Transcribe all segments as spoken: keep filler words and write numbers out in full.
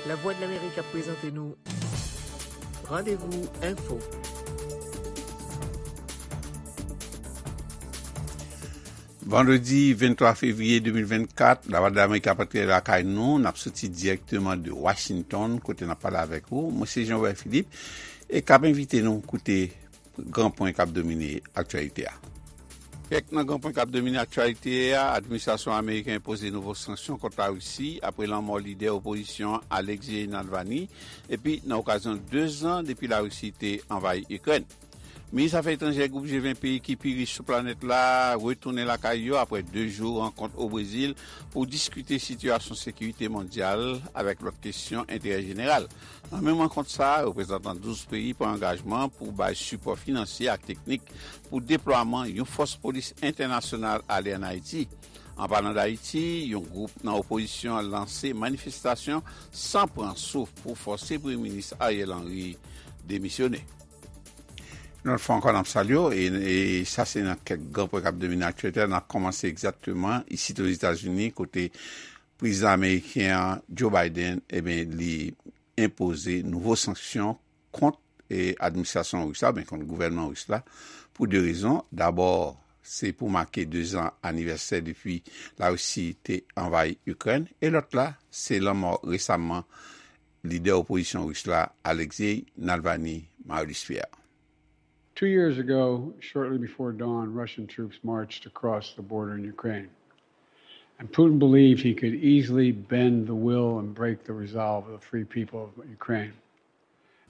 Lavwadlamerik ap prezante nou Randevou Enfo. Vandredi venntwa fevriye de mil vennkat, Lavwadlamerik ap antre lakay nou. N ap soti dirèkteman de Washington, kote n ap pale avèk ou. Mwen se Jean Robert Philippe, e k ap envite nou koute gran pwen k ap domine aktyalite a. Kèk nan gran pwen k ap domine aktyalite a: administrasyon ameriken enpoze nouvo sanksyon kont Larisi apre lanmò lidè opozisyon an Alexei Navalny, epi nan okazyon de zan depi Larisi te anvayi Ikrèn. Minis afè etranjè gwoup G ven peyi ki pi rich sou planèt la retounen lakay yo apre de jou rankont o Brezil pou diskite sitiyasyon sekirite mondyal avèk lòt kesyon enterè jeneral. Nan menm rankont sa a, reprezantan douz peyi pran angajman pou bay sipò finansye ak teknik pou deplwaman yon fòs polis entènasyonal ale ann Ayiti. An palan d Ayiti, yon gwoup nan opozisyon an lanse manifestasyon san pran souf pou fòse Premye Minis Ariel Henry demisyone. Yon lòt fwa ankò, n ap salye w, e, e sa se nan kèk gran pwen k ap domine aktyalite a. N ap kòmanse egzakteman isit Ozetazini, kote prezidan ameriken an, Joe Biden, ebyen, li enpoze nouvo sanksyon kont, e, administrasyon ris la, oubyen kont gouvènman ris la, pou de rezon. Dabò, se pou make de zan anivèsè depi Larisi te anvayi Ikrèn, e lòt la, se lanmò resaman lidè opozisyon ris la, Alexei Navalny. Marius Pierre. Two years ago, shortly before dawn, Russian troops marched across the border in Ukraine. And Putin believed he could easily bend the will and break the resolve of the free people of Ukraine.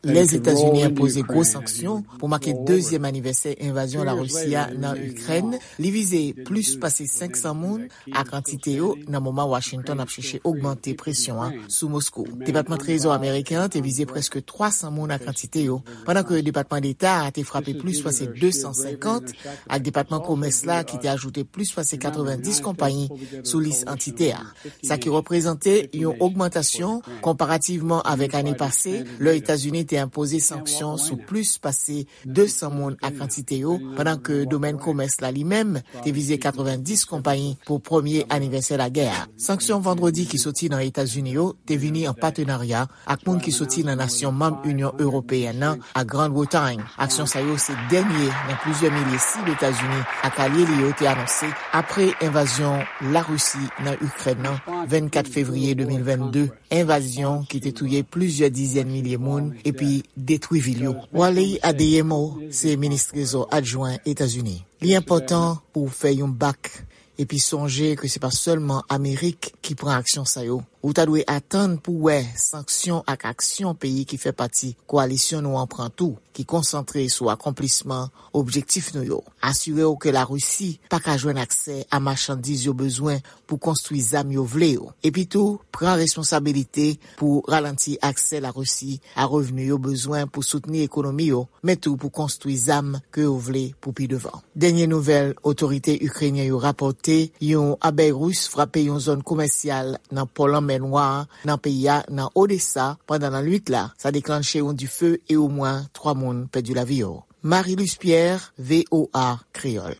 Lèzetazini enpoze gwo sanksyon pou make dezyèm anivèsè envazyon Larisi a nan Ikrèn. Li vize plis pase senk san moun ak antite yo nan moman Washington ap chèche ogmante presyon an sou Moskou. Depatman Trezò ameriken an te vize prèske twa san moun ak antite yo, pandan ke Depatman Deta a te frape plis pase de san senkant, ak Depatman Komès la ki te ajoute plis pase katrevenndis konpayi sou lis antite a, sa ki reprezante yon ogmantasyon konparativman avèk ane pase, lè Etazini te enpoze sanksyon sou plis pase de san moun ak antite yo, pandan ke domèn komès la li menm te vize katrevenndis konpayi pou premye anivèsè lagè a. Sanksyon vandredi ki soti nan Etazini yo te vini an patenarya ak moun ki soti nan nasyon manm Inyon Ewopeyèn nan ak Grann Bretay. Aksyon sa yo se dènye nan plizyè milye sib Etazini ak alye li yo te anonse apre envazyon Larisi nan Ikrèn nan vennkat fevriye de mil vennde, envazyon ki te touye plizyè dizèn milye moun epi detwi vil yo. Wally Adeyemo se minis trezò adjwen Etazini. Li enpòtan pou w fè yon bak epi sonje ke se pa sèlman Amerik ki pran aksyon sa yo. Ou ta dwe atann pou w wè sanksyon ak aksyon peyi ki fè pati kowalisyon nou an pran tou, ki konsantre sou akonplisman objektif nou yo. Asire w ke Larisi pa ka jwenn aksè a machandiz yo bezwen pou konstwi zam yo vle yo. Epitou, pran responsabilite pou ralanti aksè Larisi a revni yo bezwen pou soutni ekonomi yo, men tou pou konstwi zam ke yo vle pou pi devan. Dènye nouvèl otorite ikrenyen yo rapòte, yon abèy ris frape yon zòn komèsyal nan pò Lanmè Nwa a nan peyi a nan Odesa pandan lannwit la. Sa deklanche yon dife e omwen twa moun pèdi lavi yo. Marie-Luce Pierre, V O A Kreyòl.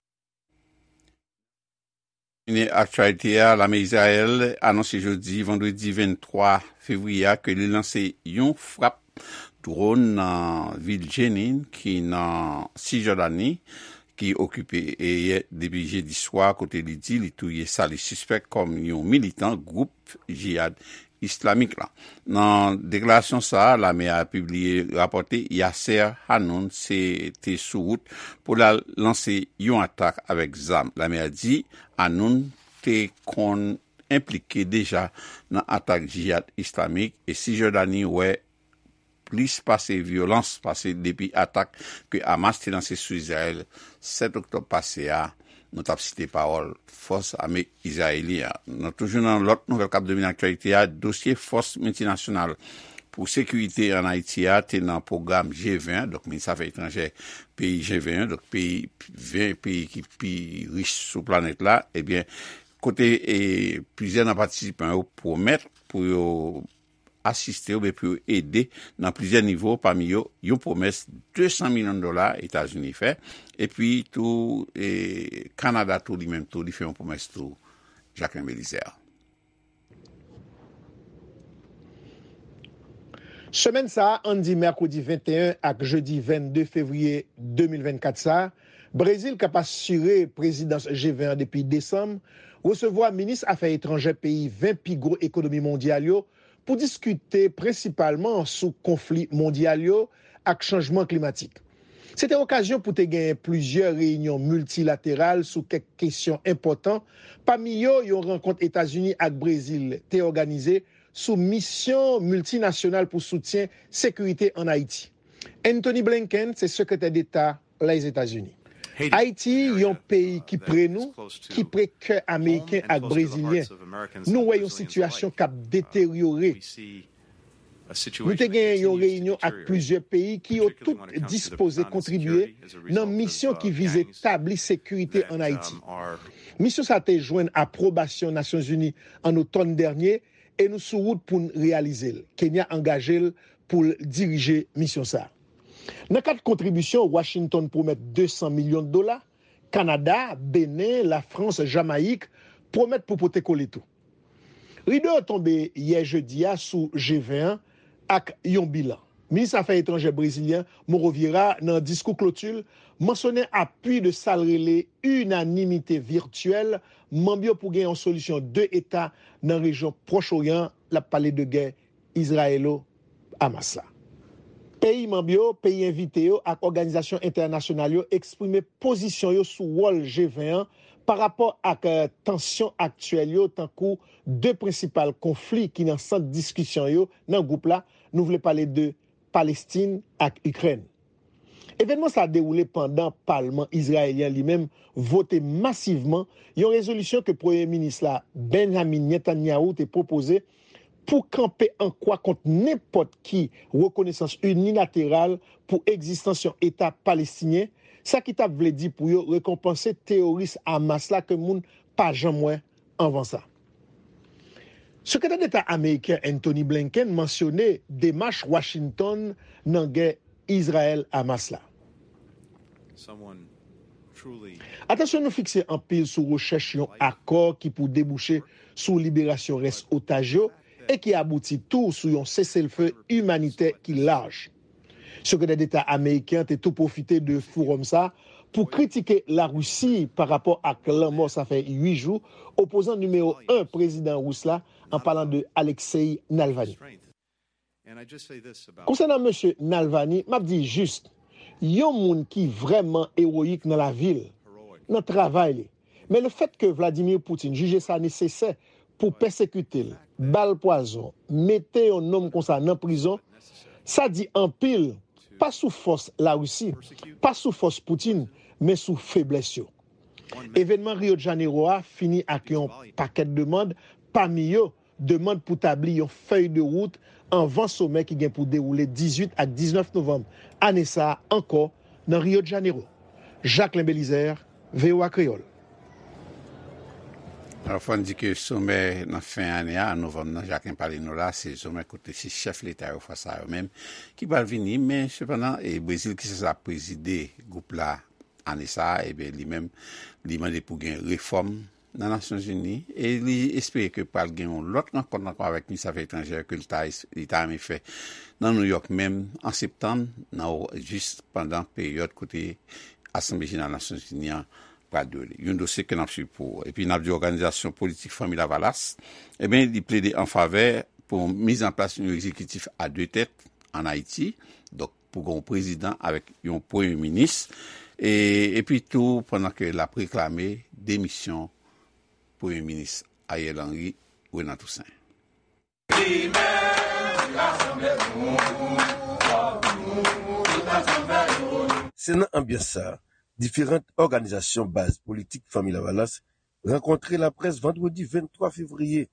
Fini aktyalite a, lame Izrayèl anonse jodi, vandredi venntwa fevriye a, ke li lanse yon frap dwòn nan vil Jenin, ki nan Sijòdani, ki okipe e yè depi jedi swa, kote li di li touye sa li sispèk kòm yon militan gwoup Jihad Islamik la. Nan deklarasyon sa a, lame a pibliye rapòte Yasser Hanoun se te sou wout pou l al lanse yon atak avèk zam. Lame a di Hanoun te konn enplike deja nan atak Jihad Islamik, e Sijòdani wè plis pase vyolans pase depi atak ke Hamas te lanse sou Izrayèl sèt oktòb pase a. Nou t ap site pawòl fòs ame izrayelyen an. Nou toujou nan lòt nouvèl k ap domine aktyalite a, dosye fòs miltinasyonal pou sekirite ann Ayiti a te nan pwogram G ven, donk minis afè etranjè peyi G ven, donk peyi, ven peyi ki pi rich sou planèt la, ebyen, kote, e, plizyè nan patisipan yo pwomèt pou yo asiste oubyen pou yo ede nan plizyè nivo, pami yo yon pwomès de san milyon dola Etazini fè, epi tou, e, Kanada tou, li menm tou, li fè yon pwomès tou, Jacquelin Belizaire. Semèn sa a, ann di mèkredi venteyen ak jedi vennde fevriye de mil vennkat sa a, Brezil k ap asire prezidans G ven an depi desanm, resevwa minis afè etranjè peyi ven pi gwo ekonomi mondyal yo pou diskite prensipalman sou konfli mondyal yo ak chanjman klimatik. Se te okazyon pou te genyen plizyè reyinyon miltilateral sou kèk kesyon enpòtan, pami yo yon rankont Etazini ak Brezil te òganize sou misyon miltinasyonal pou soutyen sekirite ann Ayiti. Anthony Blinken se Sekretè Deta Lèzetazini. Ayiti, yon peyi ki pre nou, ki pre kè Ameriken ak Brezilyen, nou wè yon sitiyasyon k ap deteryore. Nou te genyen yon reyinyon ak plizyè peyi ki yo tout dispoze kontribye nan misyon ki vize tabli sekirite ann Ayiti. Misyon sa a te jwenn apwobasyon Nasyonzini an otòn dènye e nou sou wout pou n reyalize l. Kenya angaje l pou l dirije misyon sa a. Nan kad kontribisyon, Washington pwomèt de san milyon dola, Kanada, Benen, Lafrans, Jamayik pwomèt pou pote kole tou. Rido yo tonbe yè jedi a sou G ven an ak yon bilan. Minis afè etranjè brezilyen Mauro Vieira, nan diskou kloti l, mansyonnen apui de sa l rele inanimite vityèl manm yo pou gen yon solisyon de eta nan rejyon Pwòch Oryan an, l ap pale de gè Izrayelo-Hamas la. Peyi manm yo, peyi envite yo ak òganizasyon entènasyonal yo eksprime pozisyon yo sou wòl G ven an pa rapò ak, eh, tansyon aktyèl yo, tankou de prensipal konfli ki nan sant diskisyon yo nan gwoup la, nou vle pale de Palestin ak Ikrèn. Evènman sa a dewoule pandan palman izrayelyen li menm vote masivman yon rezolisyon ke Premye Minis la, Benjamin Netanyahu, te pwopoze pou kanpe an kwa kont nenpòt ki rekonesans inilateral pou egzistans yon Eta palestinyen, sa ki t ap vle di pou yo rekonpanse teyoris Hamas la ke moun pa janm wè anvan sa. Sekretè Deta ameriken Anthony Blinken mansyone demach Washington nan gè Izrayèl-Hamas la. Atansyon nou fikse anpil sou rechèch yon akò ki pou debouche sou liberasyon rès otaj yo e ki abouti tou sou yon seselfe imanitè ki laj. Sekretè Deta ameriken an te tou pwofite de fowòm sa a pou kritike Larisi pa rapò ak lanmò sa fè uit jou opozan nimewo en prezidan ris la, an palan de Alexei Navalny. Konsènan mesye Navalny, m ap di jis, yon moun ki vrèman ewoyik nan lavi l, nan travay li. Men lefètke Vladimir Putin jije sa nesesè pou pèsekite l, ba l pwazon, mete yon nonm konsa nan prizon, sa di anpil, pa sou fòs Larisi, pa sou fòs Putin, men sou feblès yo. Evènman Rio de Janeiro a fini ak yon pakèt demann, pami yo demann pou tabli yon fèy de wout anvan somè ki gen pou dewoule dizuit ak diznèf novanm ane sa a ankò nan Rio de Janeiro. Jacquelin Belizaire, V O A Kreyòl. Alò, fò n di ke somè nan fen ane a, an novanm nan, Jacquelin pale nou la, se somè kote se chèf leta yo fwa sa yo menm ki pral vini, men sepandan, e Brezil ki sanse ap prezide gwoup la ane sa a, ebyen, li menm, li mande pou gen refòm nan Nasyonzini e li espere ke pral gen yon lòt rankont ankò avèk minis afè etranjè ke li ta, li ta renmen fè nan Nouyòk menm an septanm, nan, jis pandan peryòd kote Asanble Jeneral Nasyonzini an pral dewoule. Yon dosye ke n ap swiv pou ou. Epi n ap di òganizasyon politik Fanmi Lavalas, ebyen, li plede an favè pou miz an plas yon egzekitif a de tèt ann Ayiti. Donk, pou gen yon prezidan avèk yon premye minis, e, epi tou pandan ke l ap reklame demisyon premye minis Ariel Henry, Renan Toussaint. Se nan anbyans sa a, diferan òganizasyon baz politik Fanmi Lavalas rankontre laprès vandredi venntwa fevriye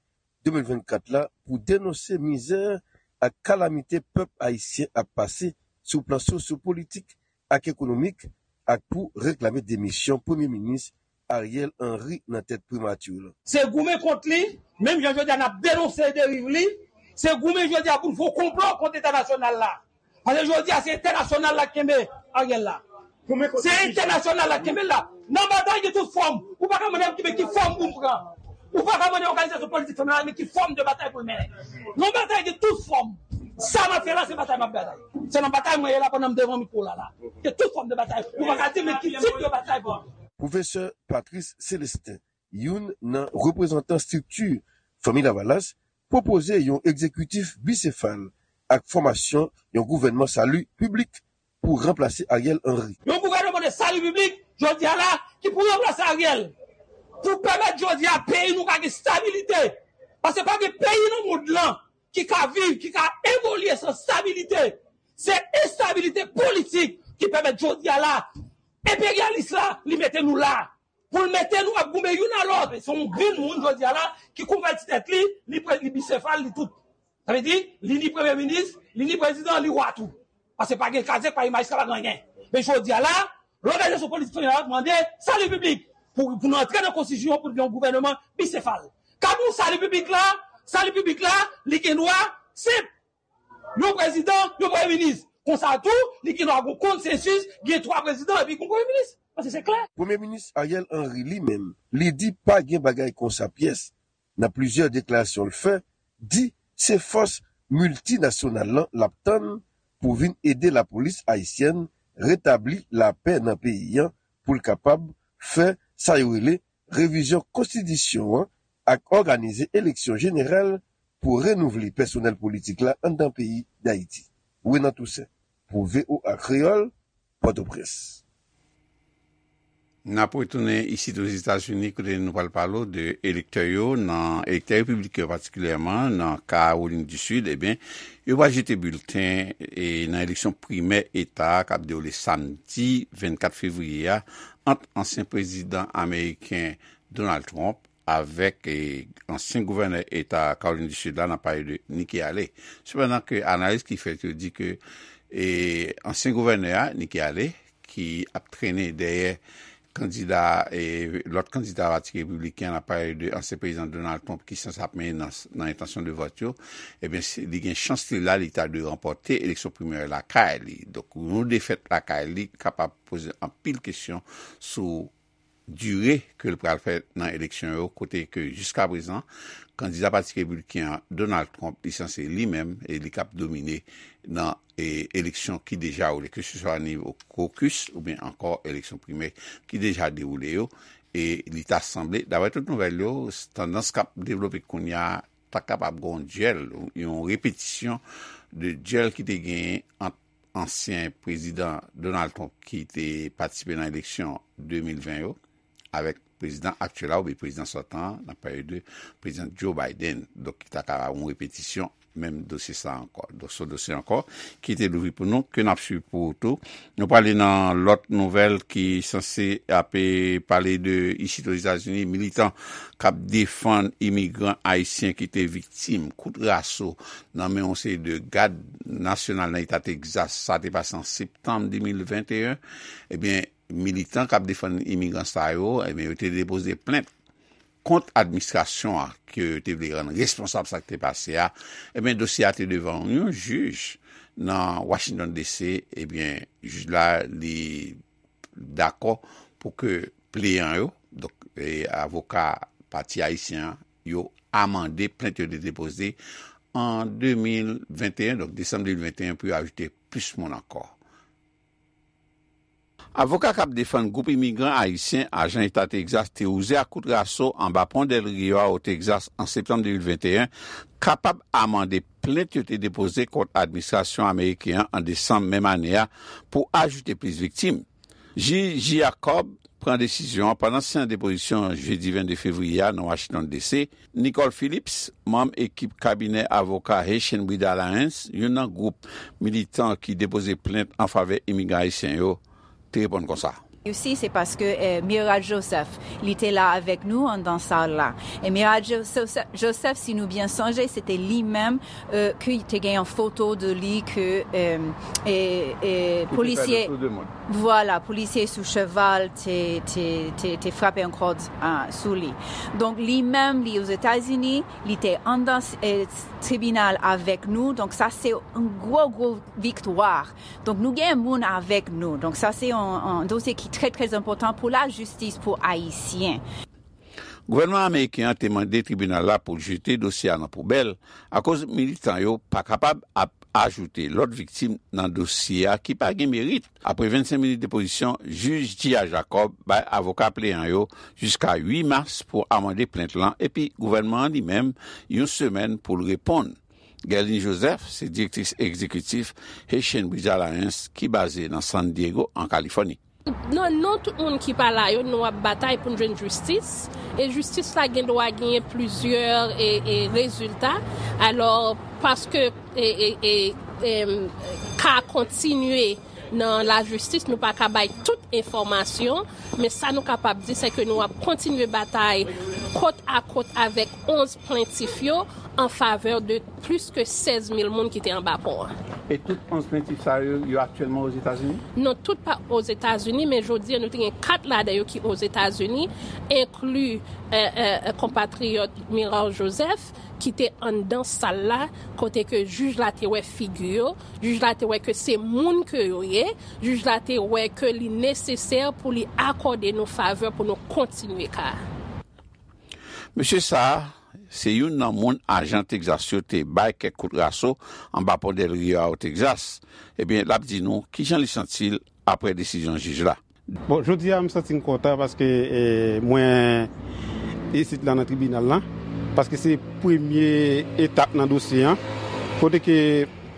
de mil vennkat la pou denonse mizè ak kalamite pèp ayisyen ap pase sou plan sosyo-politik ak ekonomik ak pou reklame demisyon Premye Minis Ariel Henry nan tèt primati la. Se goumen kont li, menm jan jodi a n ap denonse deriv li, se goumen jodi a pou n fè yon konplo kont entènasyonal la. Paske jodi a se entènasyonal la k kenbe Ariel la. Se entènasyonal la k kenbe l la. Nan batay gen tout fòm. Ou pa ka mande m ki, men ki fòm pou m pran. Ou pa ka mande òganizasyon politik fanmi la men ki fòm de batay pou l mennen. Nan batay gen tout fòm. Sa m ap fè la, se batay m ap batay. Se nan batay mwen ye la pandan m devan mikwo la la. Ke tout fòm de batay. Ou pa ka di men ki tip de batay pou m. Pwofesè Patrice Célestin, youn nan reprezantan estrikti Fanmi Lavalas, pwopoze yon egzekitif bisefal ak fòmasyon yon gouvènman sali piblik pou ranplase Ariel Henry. Yon gouvènman de sali piblik, jodi a la, ki pou ranplase Ariel, pou pèmèt jodi a peyi nou ka gen stabilite. Paske pa gen peyi nan mond lan ki ka viv, ki ka evolye san stabilite. Se enstabilite politik ki pèmèt jodi a la, enperyalis la, li mete nou la. Pou l mete nou ap goumen youn a lòt. Se yon grenn moun jodi a la ki konvèti tèt li, li pre-, li bisefal, li tout. Sa vle di, li ni premye minis, li ni prezidan, li wa tou. Paske pa gen kazèk, pa gen majistra, pa gen anyen. Men jodi a la, lòganizasyon politik fanmi la mande sali piblik pou, pou nou antre nan konstitisyon pou gen yon gouvènman bisefal. Ka nou sali piblik la, sali piblik la, li gen dwa senp. Yon prezidan, yon premye minis. Konsa tou, li gen dwa gon konsensis, gen twa prezidan epi gon premye minis. Paske se klè. Premye minis Ariel Henry li menm, li di pa gen bagay konsa pyès. Nan plizyè deklarasyon l fè, di se fòs miltinasyonal lan l ap tann pou vin ede lapolis ayisyèn retabli lapè nan peyi an pou l kapab fè sa yo rele revizyon konstitisyon an ak òganize eleksyon jeneral pou renouvle pèsonèl politik la anndan peyi Dayiti. Renan Toussaint, pou V O A Kreyòl, Pòtoprens. N ap retounen isit Ozetazini, kote nou pral pale w de elektè yo, nan elektè repibliken yo patikilyèman, nan Kawolin di Sid, ebyen, yo pral jete bilten e nan eleksyon primè eta a k ap dewoule samdi vennkat fevriye a ant ansyen prezidan ameriken Donald Trump avèk, e, ansyen gouvènè eta Kawolin di Sid la, n ap pale de Nikki Haley. Sepandan ke analiz ki fèt yo di ke, e, ansyen gouvènè a, Nikki Haley, ki ap trennen dèyè kandida, e, lòt kandida pati repibliken, n ap pale de ansyen prezidan Donald Trump ki sanse ap mennen nan, nan entansyon de vòt yo, ebyen, se, li gen chans li la, li ta dwe ranpòte eleksyon primè lakay li. Donk, yon defèt lakay li kapab poze anpil kesyon sou dire ke l pral fè nan eleksyon yo, kote ke jiskaprezan, kandida pati repibliken an, Donald Trump, li sanse li menm, e li k ap domine nan, e, eleksyon ki deja woule, keseswa nivo kokis oubyen ankò eleksyon primè ki deja dewoule yo. E li ta sanble, daprè tout nouvèl yo, tandans k ap devlope kounye a, ta kapab gen yon dyèl, yon repetisyon de dyèl ki te genyen ant ansyen prezidan Donald Trump ki te patisipe nan eleksyon de mil ven yo, avèk prezidan aktyèl la oubyen prezidan sòtan an, n ap pale de prezidan Joe Biden. Donk, ki ta ka yon repetisyon menm dosye sa ankò. Donk, se yon dosye ankò ki te louvri pou nou, ke n ap swiv pou ou tou. Nou prale nan lòt nouvèl ki sanse ap, e, pale de isit Ozetazini, militan k ap defann imigran ayisyen ki te viktim kout raso nan men yon seri de gad nasyonal nan eta Tegzas. Sa te pase an septanm de mil venteyen. Ebyen, militan k ap defann imigran sa yo, ebyen, yo te depoze plent kont administrasyon an ke yo te vle rann responsab sa k te pase a. Ebyen, dosye a te devan yon jij nan Washington D C. Ebyen, jij la, li dakò pou ke pleyan yo, donk, e, avoka pati ayisyen an, yo amande plent yo te depoze an de mil venteyen, donk desanm de mil venteyen, pou yo ajoute plis moun ankò. Avoka k ap defann gwoup imigran ayisyen, ajan eta Tegzas, te wouze ak kout raso anba pon Del Rio a o Tegzas an septanm de mil venteyen, kapab amande plent yo te depoze kont administrasyon ameriken an an desanm menm ane a pou ajoute plis viktim. Jij Jacob pran desizyon an pandan seyans depozisyon jedi vennde fevriye a nan Washington D C. Nicole Phillips, manm ekip kabinè avoka Haitian Breed Alliance, youn nan gwoup militan ki depoze plent an favè imigran ayisyen yo, te reponn konsa. Isi, se paske, eh, Mira Joseph, li te la avèk nou anndan sal la. E Mira Joseph, Joseph, si nou byen sonje, se te li menm, eh, ki te gen yon foto de li ke, eh, eh, eh, polisye, vwala, polisye sou cheval te, te, te, te frape yon kòd, ah, sou li. Donk, li menm, li Ozetazini, li te anndan, eh, tribinal avèk nou. Donk, sa se yon gwo, gwo viktwa. Donk, nou gen moun avèk nou. Donk, sa se yon, yon dosye ki trè, trè enpòtan pou lajistis pou Ayisyen. Gouvènman ameriken an te mande tribinal la pou l jete dosye a nan poubèl akoz militan yo pa kapab ap ajoute lòt viktim nan dosye a ki pa gen merit. Apre vennsenk minit depozisyon, jij Gia Jacob bay avoka pleyan yo jiska uit mas pou amande plent lan, epi gouvènman an li menm yon semèn pou l reponn. Guerline Joseph se direktris egzekitif Haitian Bridge Alliance ki baze nan San Diego, an Kalifòni. Nan non tout moun ki pa la yo, nou ap batay pou n jwenn jistis. E jistis la gen dwa genyen plizyè e, e rezilta. Alò, paske e, e, e, em, ka kontinye nan lajistis, nou pa ka bay tout enfòmasyon, men sa nou kapab di, se ke nou ap kontinye batay kot a kot avèk onz plentif yo an favè de plis ke sèz mil moun ki te anba pon an. E tout onz plentif sa yo, yo aktyèlman Ozetazini? Non, tout pa Ozetazini, men jodi a nou te gen kat ladan yo ki Ozetazini, enkli, e, e, e, konpatriyòt Miral Joseph, ki te anndan sal la, kote ke jij la te wè figi yo, jij la te wè ke se moun ke yo ye, jij la te wè ke li nesesè pou li akòde nou favè pou nou kontinye ka a. Mesye sa a, se youn nan moun ajan Texas yo te bay kèk kout raso anba pon Del Rio a o Texas. Ebyen, l ap di nou kijan li santi l apre desizyon jij la. Bon, jodi a, m santi m kontan paske, e, mwen isit la nan tribinal la, paske se premye etap nan dosye an, kote ke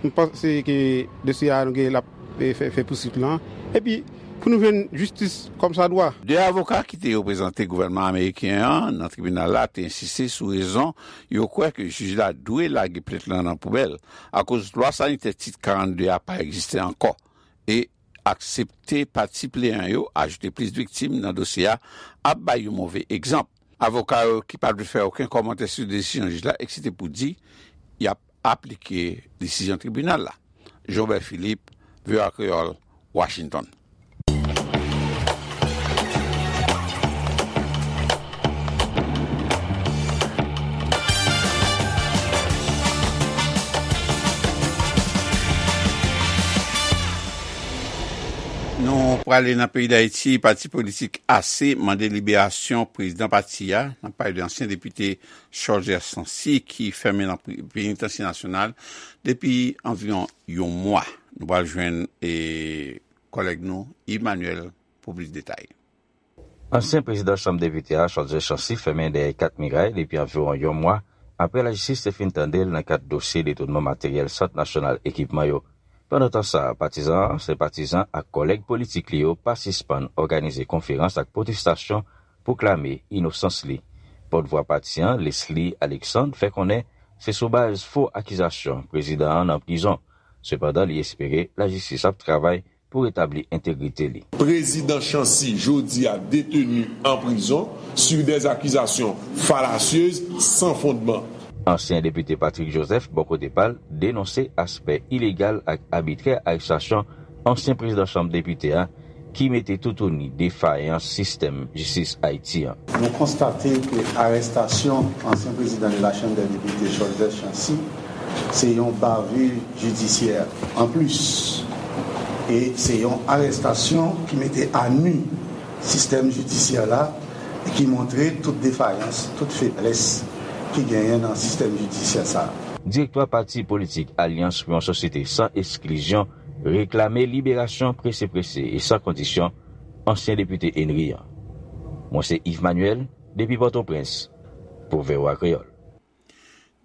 m panse ke dosye a nou gen l ap, e, fè, fè pousuit lan. Epi, pou nou jwenn jistis kòmsadwa. De avoka ki te reprezante gouvènman ameriken an nan tribinal la te ensiste sou rezon yo kwè ke jij la dwe lage plent lan nan poubèl, akoz lwa sanitè tit karannde a pa egziste ankò. E aksepte pati pleyan yo ajoute plis viktim nan dosye a ap bay yon move egzanp. Avoka yo ki pa vle fè okenn kòmantè sou desizyon jij la eksite pou di y ap aplike desizyon tribinal la. Jobert Philippe, V O A Kreyòl, Washington. Nou prale nan peyi Dayiti, pati politik A C mande liberasyon prezidan pati a, n ap pale de ansyen depite Cholzer Chancy ki fèmen nan pri-, penitansye nasyonal depi anviwon yon mwa. Nou pral jwenn, e, kòlèg nou, Yves Manuel, pou plis detay. Ansyen prezidan Chanm Depite a, Cholzer Chancy, fèmen dèyè kat miray depi anviwon yon mwa, apre lajistis te fin tande l nan kad dosye detounman materyèl Sant Nasyonal Ekipman yo. Pandan tan sa a, patizan an, senpatizan ak kòlèg politik li yo pa sispann òganize konferans ak pwotestasyon pou klame inosans li. Pòtvwa pati an, Leslie Alexandre, fè konnen se sou baz fo akizasyon prezidan an nan prizon. Sepandan, li espere lajistis ap travay pou retabli entegrite li. Prezidan Chancy, jodi a, deteni an prizon sur des accusations fallacieuses, sans fondement. Ansyen depite Patrick Joseph, bò kote pa l, denonse aspè ilegal ak abitrè arestasyon ansyen prezidan Chanm Depite a, ki mete toutouni defayans sistèm jistis Ayiti an. Nou konstate ke arestasyon ansyen prezidan de la Chambre des Députés, Cholzer Chancy, se yon bavure judiciaire an plis. E se yon arestasyon ki mete a nu sistèm jidisyè la e ki montre tout defayans, tout feblès ki genyen nan sistèm jidisyè sa a. Direktwa pati politik Alyans pou yon Sosyete San Eksklizyon reklame liberasyon prese prese e san kondisyon ansyen depite Henry an. Mwen se Yves Manuel, depi Pòtoprens, pou V O A Kreyòl.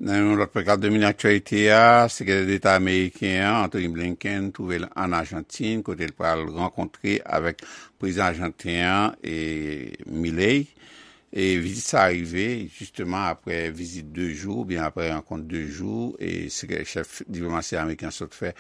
Nan yon lòt prekal domine aktyalite a, Sekretè Deta ameriken an, Antony Blinken, twouve l ann Ajantin, kote l pral rankontre avèk prezidan ajanten an, e, Milei. E vizit sa a rive, jisteman, apre vizit de jou, oubyen apre rankont de jou, e sekre-, chèf diplomasi ameriken an sot fè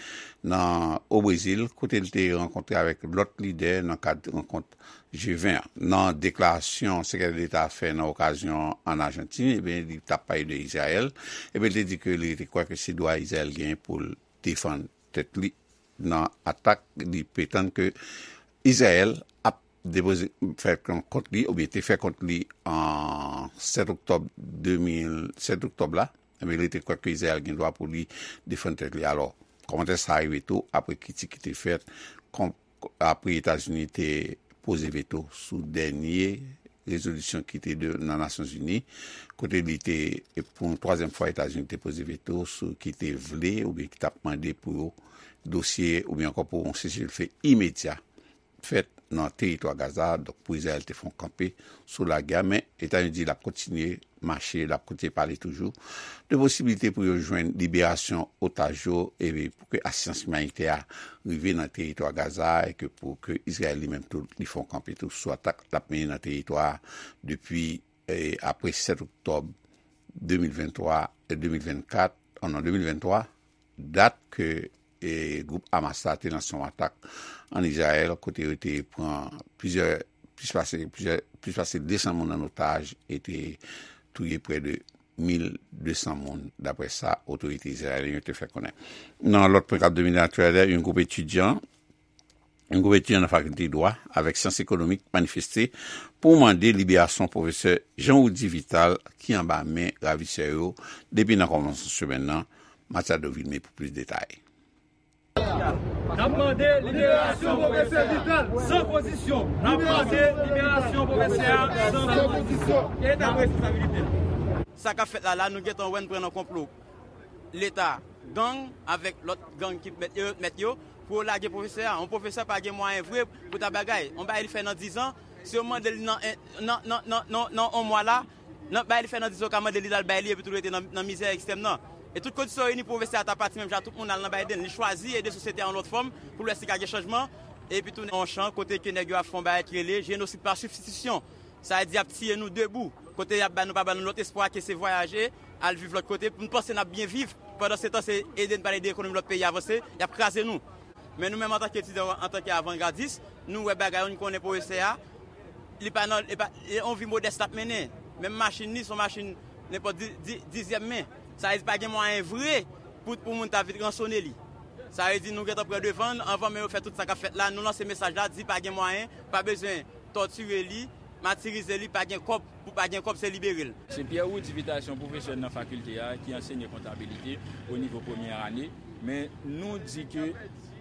nan, o Brezil, kote l te rankontre avèk lòt lidè nan kad rankont G ven an. Nan deklarasyon Sekretè Deta a fè nan okazyon an Ajantin, ebyen, li t ap pale de Izrayèl, ebyen, li te di ke li te kwè ke se dwa Izrayèl genyen pou l defann tèt li nan atak li pretann ke Izrayèl ap depoze, fè kont li, oubyen te fè kont li an sèt oktòb de mil, sèt oktòb la, ebyen, li te kwè ke Izrayèl gen dwa pou li defann tèt li. Alò, kòmantè sa a rive tou apre kritik ki te fèt kont, apre Etazini te poze veto sou dènye rezolisyon ki te de, nan Nasyonzini, kote li te, e pou yon twazyèm fwa, Etazini te poze veto sou ki te vle oubyen ki t ap mande pou yo dosye oubyen ankò pou yon seselfe imedya fèt nan teritwa Gaza. Donk, pou Izrayèl te fè yon kanpe sou lagè a, men Etazini di l ap kontinye mache, l ap kontinye pale toujou de posiblite pou yo jwenn liberasyon otaj yo, e pou ke asistans imanitè a rive nan teritwa Gaza, e ke pou ke Izrayèl li menm tou, li fè yon kanpe tou sou atak l ap mennen nan teritwa a depi, e, apre sèt oktòb de mil venntwa, e, de mil vennkat, oh non, de mil venntwa, dat ke, e, gwoup Hamas la te lanse yon atak ann Izrayèl, kote yo te pran plizyè, plis pase, plizyè, plis pase de san moun an otaj e te touye prè de mil de san moun, daprè sa otorite izrayelyen yo te fè konnen. Nan lòt pwen k ap domine aktyalite a, yon gwoup etidyan, yon gwoup etidyan nan fakilte dwa avèk syans ekonomik manifeste pou mande liberasyon pwofesè Jean Roudy Vital ki anba men ravisè yo depi nan kòmansman semèn nan. Matiado Vilmé pou plis detay. N ap mande liberasyon pwofesè Vital san kondisyon. N ap mande liberasyon pwofesè a san kondisyon. Eta responsabilite l. Sa k ap fèt la la, nou gentan wè n pran nan konplo Leta, gang avèk lòt gang ki mèt yo, mèt yo pou yo lage pwofesè a. Yon pwofesè pa gen mwayen vre pou ta bagay. Yon bagay li fè nan dizan, si yo mande l nan, nan, nan, nan, nan, nan yon mwa la, nan bagay li fè nan dizan, yo ka mande li l al bay li epi tou l rete nan, nan mizè ekstrèm nan. E tout kondisyon reyini, pwofesè a ta pati menm jan tout moun al nan Biden. Li chwazi ede sosyete a yon lòt fòm pou l wè si ka gen chanjman. Epi tounen yon chan kote ke nèg yo ap fè yon bagay ki rele jenosid pa sibstitisyon. Sa vle di y ap tiye nou debou. Kote y ap ba nou, pa ba nou lòt espwa ke se vwayaje, al viv lòt kote, pou n panse n ap byen viv. Pandan se tan, se ede n pale de ekonomi lòt peyi avanse, y ap kraze nou. Men nou menm antanke etidyan, antanke avangardis, nou wè bagay yo, nou konnen pwofesè a, li pa nan, li pa, li yon vi modès l ap mennen. Menm machin li, se yon machin nenpòt di, di, dizyèm men. Sa vle di pa gen mwayen vre pou, pou moun ta vin ransone li. Sa vle di nou gentan pran devan l, anvan menm yo fè tout sa k ap fèt la, nou lanse mesaj la, di pa gen mwayen, pa bezwen tòtire li, matirize li, pa gen kòb, pou pa gen kòb se libere l. Se Pierre Roudy Vital, se yon pwofesè nan fakilte a ki ansenye kontabilite o nivo premyè ane, men nou di ke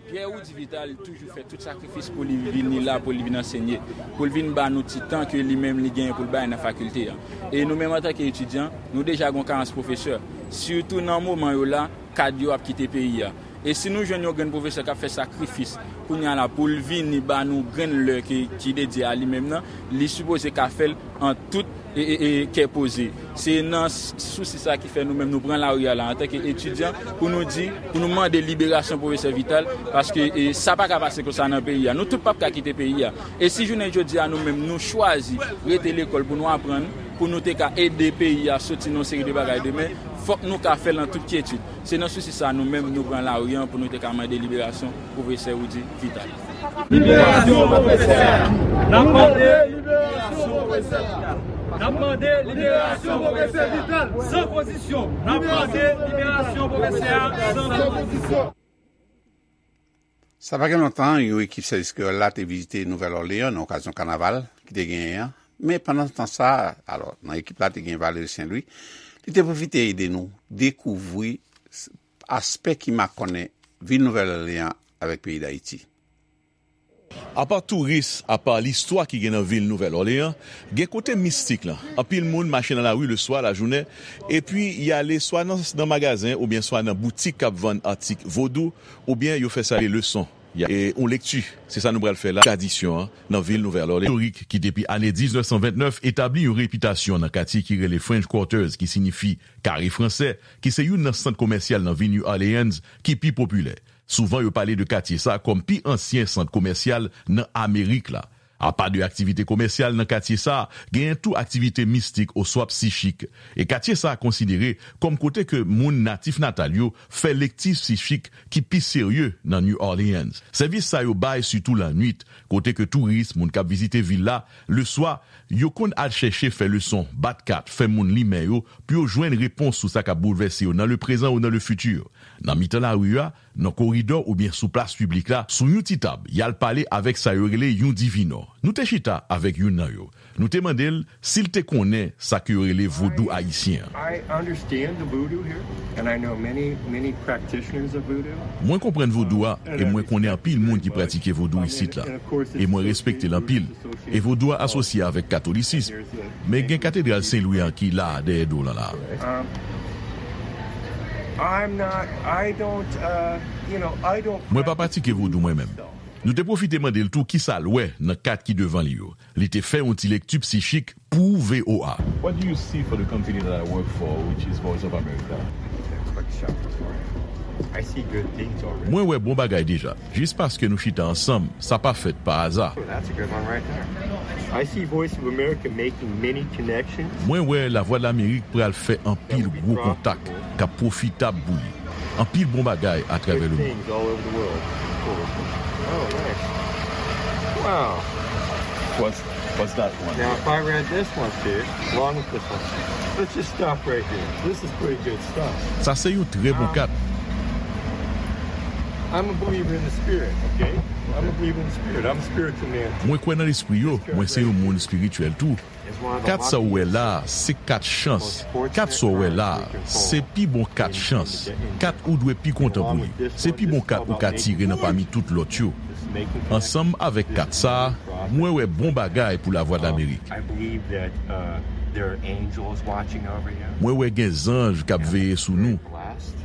Pierre Roudy Vital toujou fè tout sakrifis pou li vini la, pou li vin ansenye, pou l vin ba nou ti tan ke li menm li genyen pou l bay nan fakilte a. E nou menm antanke etidyan, nou deja gen yon karans pwofesè, sitou nan moman yo la, kad yo ap kite peyi a. E si nou jwenn yon grenn pwofesè k ap fè sakrifis kounye a la pou l vini ba nou grenn lè ki, ki dedye a li menm nan, li sipoze ka fè l an tout e, e, e kè poze. Se nan s- sousi sa ki fè nou menm nou pran lari a la antanke etidyan pou nou di, pou nou mande liberasyon pwofesè Vital, paske e, sa pa ka pase konsa nan peyi a. Nou tout p ap ka kite peyi a. E si jounen jodi a nou menm nou chwazi rete lekòl pou nou aprann, pou nou te ka ede peyi a soti nan yon seri de bagay demen, fòk nou ka fè l an tout kyetid. Se nan sousi sa nou menm nou pran lari an pou nou te ka mande liberasyon pwofesè Roudy Vital. Liberasyon pwofesè a! N ap mande liberasyon pwofesè Vital! N ap mande liberasyon pwofesè Vital san kondisyon! N ap mande liberasyon pwofesè a san kondisyon! Sa pa gen lontan, yon ekip sèvis kreyòl la te vizite Nouvèl Òleyan nan okazyon kanaval ki te genyen an. Men pandan tan sa a, alò, nan ekip la te gen Valery Saint Louis, li te pwofite ede nou dekouvri s- aspè ki makònen vil Nouvèl Òleyan avèk peyi Dayiti. Apa touris, apa listwa ki gen nan vil Nouvèl Òleyan, gen kote mistik lan. Anpil moun mache nan lari leswa, lajounen, epi y ale swa nan, nan magazen oubyen swa nan boutik k ap vann atik vodou, oubyen yo fè sa rele leson. Y a, e, yon lekti, se sa nou pral fè la, tradisyon an nan vil Nouvèl Òleyan. Istorik ki depi ane diznèf san vennèf etabli yon repitasyon nan katye ki rele French Quarters, ki siyifi kare fransè, ki se youn nan sant komèsyal nan vil New Orleans ki pi popilè. Souvan yo pale de katye sa a kòm pi ansyen sant komèsyal nan Amerik la. Apa de aktivite komèsyal nan katye sa a, genyen tou aktivite mistik oswa psichik. E katye sa a konsidere kòm kote ke moun natif natal yo fè lekti psichik ki pi serye nan New Orleans. Sèvis sa yo bay sitou lannwit, kote ke touris, moun k ap vizite vil la, leswa, yo konn al chèche fè leson, bat kat, fè moun li men yo, pou yo jwenn repons sou sa k ap boulvèse yo nan leprezan ou nan lefiti. Nan mitan lari a, nan koridò oubyen sou plas piblik la, sou yon ti tab, y al pale avèk sa yo rele yon divinò. Nou te chita avèk youn nan yo. Nou te mande l si l te konnen sa ke yo rele vodou ayisyen an. I understand the voodoo here, and I know many, many practitioners of voodoo. Mwen konprann vodou a, e mwen konnen anpil moun ki pratike vodou isit la. E mwen respekte l anpil. E vodou a asosye avèk katolisis. Men gen katedral Sen Lwi an ki la dèyè do w lan la. Um, I'm not, I don't, uh, you know, I don't Mwen pa pratike vodou mwen menm. Nou te pwofite mande l tou kisa l wè nan kat ki devan li yo. Li te fè yon ti lekti sichik pou V O A. What do you see for the company that I work for, which is Voice of America? That's what shop for. I see good things already. Mwen wè bon bagay deja. Jis paske nou chita ansanm, sa pa fèt pa aza. Oh, that's a good one right there. I see Voice of America making many connections. Mwen wè Lavwadlamerik pral fè anpil gwo kontak k ap pwofitab pou li. Anpil bon bagay atravè Good lemonn. Things all over the world. Cool. Oh, nice. Wow. What's what's that one? Now, if I read this one too, along with this one, let's just stop right here. This is pretty good stuff. Sa se yon trè bon kat. I'm a believer in the spirit, okay? I'm a believer in the spirit. I'm a spiritual man. Mwen kwè nan lespri yo, mwen se yon moun espirityèl tou. Kat sa w wè la a, se kat chans. Kat sa w wè la a, se pi bon kat chans. Kat ou dwe pi kontan pou li. Se pi bon kat ou ka tire nan pami tout lòt yo. Ansanm avèk kat sa a, mwen wè bon bagay pou Lavwadlamerik. I believe that uh, there are angels watching over you. Mwen wè gen zanj k ap veye sou nou. Blessed.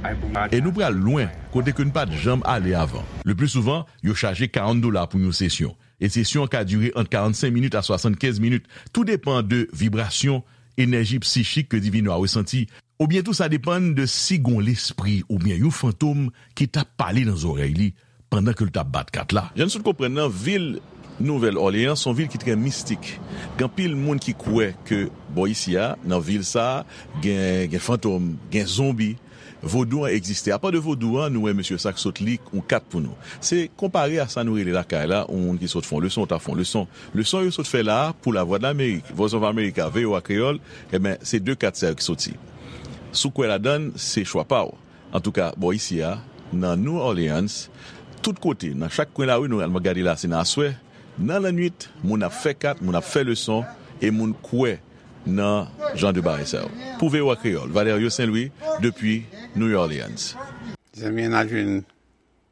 I believe E nou pral lwen, kote ke n pa t janm ale avan. Le pli souvan, yo chaje karant dola pou yon sesyon. E sesyon an ka dire ant karannsenk minit a swasannkenz minit. Tou depan de vibrasyon, enèji sichik ke Divino a resanti. Oubyen tou sa depann de si gon lespri oubyen yon fantom ki t ap pale nan zòrèy li pandan ke l t ap bat kat la. Jan n sot konprann nan vil Nouvèl Òleyans, se yon vil ki trè mistik. Gen anpil moun ki kwè ke bò isi a, nan vil sa a, gen, gen fantom, gen zonbi. Vodou an egziste. Apa de vodou an, nou wè mesye sa k sot li yon kat pou nou. Se konpare a sa nou rele lakay la, yon moun ki sot fè yon leson, ou ta fè yon leson. Leson yo sot fè la a pou Lavwadlamerik, Voice of America, V O A Kreyòl, enben, se de kat sa yo ki soti. Si w kwè ladan l, se chwa pa w. Antouka, bò isi a, nan New Orleans, tout kote, nan chak kwen lari, nou al gade la, se nan aswè, nan lannwit, moun ap fè kat, moun ap fè leson, e moun kwè nan jan de bagay sa yo. Pou V O A Kreyòl, Valerio Saint Louis, depi New Orleans. Zanmi n ap jwenn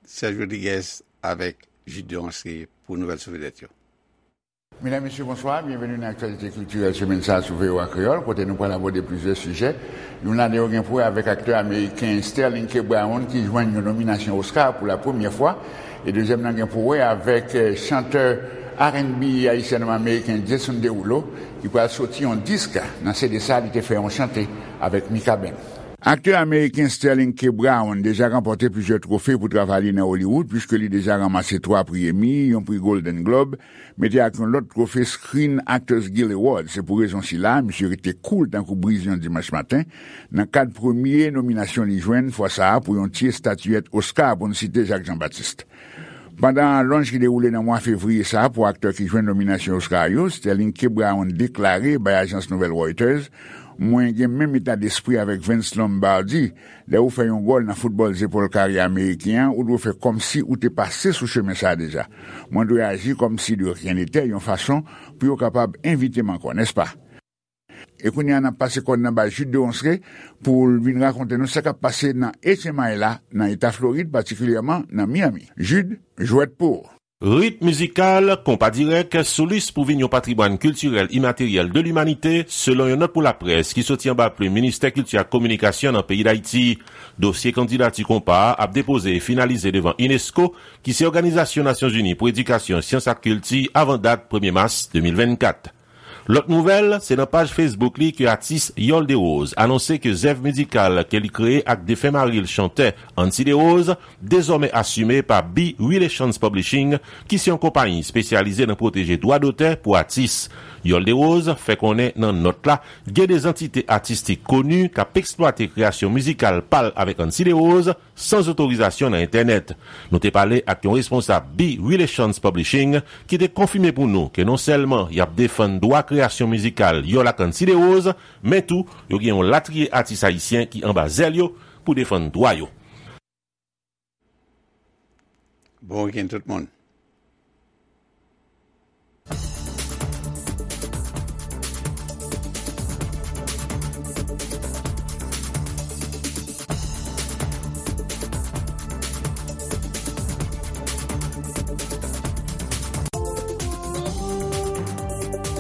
Serge Rodriguez avèk Jude Deronceray pou nouvèl sou vedèt yo. Medam, mesye, bonswa. Byenveni nan aktyalite kiltirèl semèn sa a sou V O A Kreyòl, kote nou pral abòde plizyè sijè. Youn ladan yo gen pou wè avèk aktè ameriken Sterling K. Brown ki jwenn yon nominasyon Oscar pou la premyè fwa. E dezyèm nan gen pou wè avèk, eh, chantè R and B ayisyano-ameriken Jason Derulo ki pral soti yon disk. Nan C D sa a, li te fè yon chante avèk Mikaben. Aktè ameriken Sterling K. Brown deja ranpòte plizyè twofe pou travay li nan Hollywood, piske li deja ranmase twa pri Emmy, yon pri Golden Globe, mete ak yon lòt twofe Screen Actors Guild Award. Se pou rezon sila, misye rete cool tankou briz yon dimanch maten, nan kad premye nominasyon li jwenn, fwa sa a pou yon ti estatiyèt Oscar, pou n site Jacques Jean-Baptiste. Pandan lonj ki dewoule nan mwa fevriye sa a pou aktè ki jwenn nominasyon Oscar yo, Sterling K. Brown deklare bay ajans nouvèl Reuters, mwen gen menm eta despri avèk Vince Lombardi, lè ou fè yon gòl nan foutbòl zepòl kare ameriken an, ou dwe fè kòmsi ou te pase sou chemen sa a deja. Mwen dwe aji kòmsi de rien n'était, yon fason pou yo kapab envite m ankò, nèspa? E kounye a, n ap pase kò n nan bay Jude Deronceray pou l vin rakonte nou sa k ap pase nan H M I la, nan eta Florid, patikilyèman nan Miami. Jude, jwèt pou ou. Rit mizikal, konpa dirèk, sou lis pou vin yon patrimwàn kiltirèl imateryèl de limanite, selon yon nòt pou laprès ki soti anba plim Ministè Kilti ak Kominikasyon nan peyi Dayiti. Dosye kandidati konpa a ap depoze e finalize devan unesco, ki se Òganizasyon Nasyonzini pou Edikasyon, Syans ak Kilti, avan dat premye mas de mil vennkat. Lòt nouvèl, se nan paj Facebook li ke atis Yòl Derose anonse ke zèv mizikal ke li kreye ak defen mari l, chantè Ancy Derose, dezòmè asime pa B Relations Publishing, ki se yon konpayi espesyalize nan pwoteje dwa dotè pou atis. Yòl Derose fè konnen nan nòt la, gen de zantite atistik koni k ap eksplwate kreyasyon mizikal pa l avèk Ancy Derose, san zotorizasyon nan entènèt. Nou te pale ak yon responsab B Relations Publishing ki te konfime pou nou ke non sèlman y ap defann dwa kreyasyon mizikal Yòl ak Ancy Derose, men tou yo gen yon latriye atis ayisyen ki anba zèl yo pou defann dwa yo. Bon wikenn tout moun.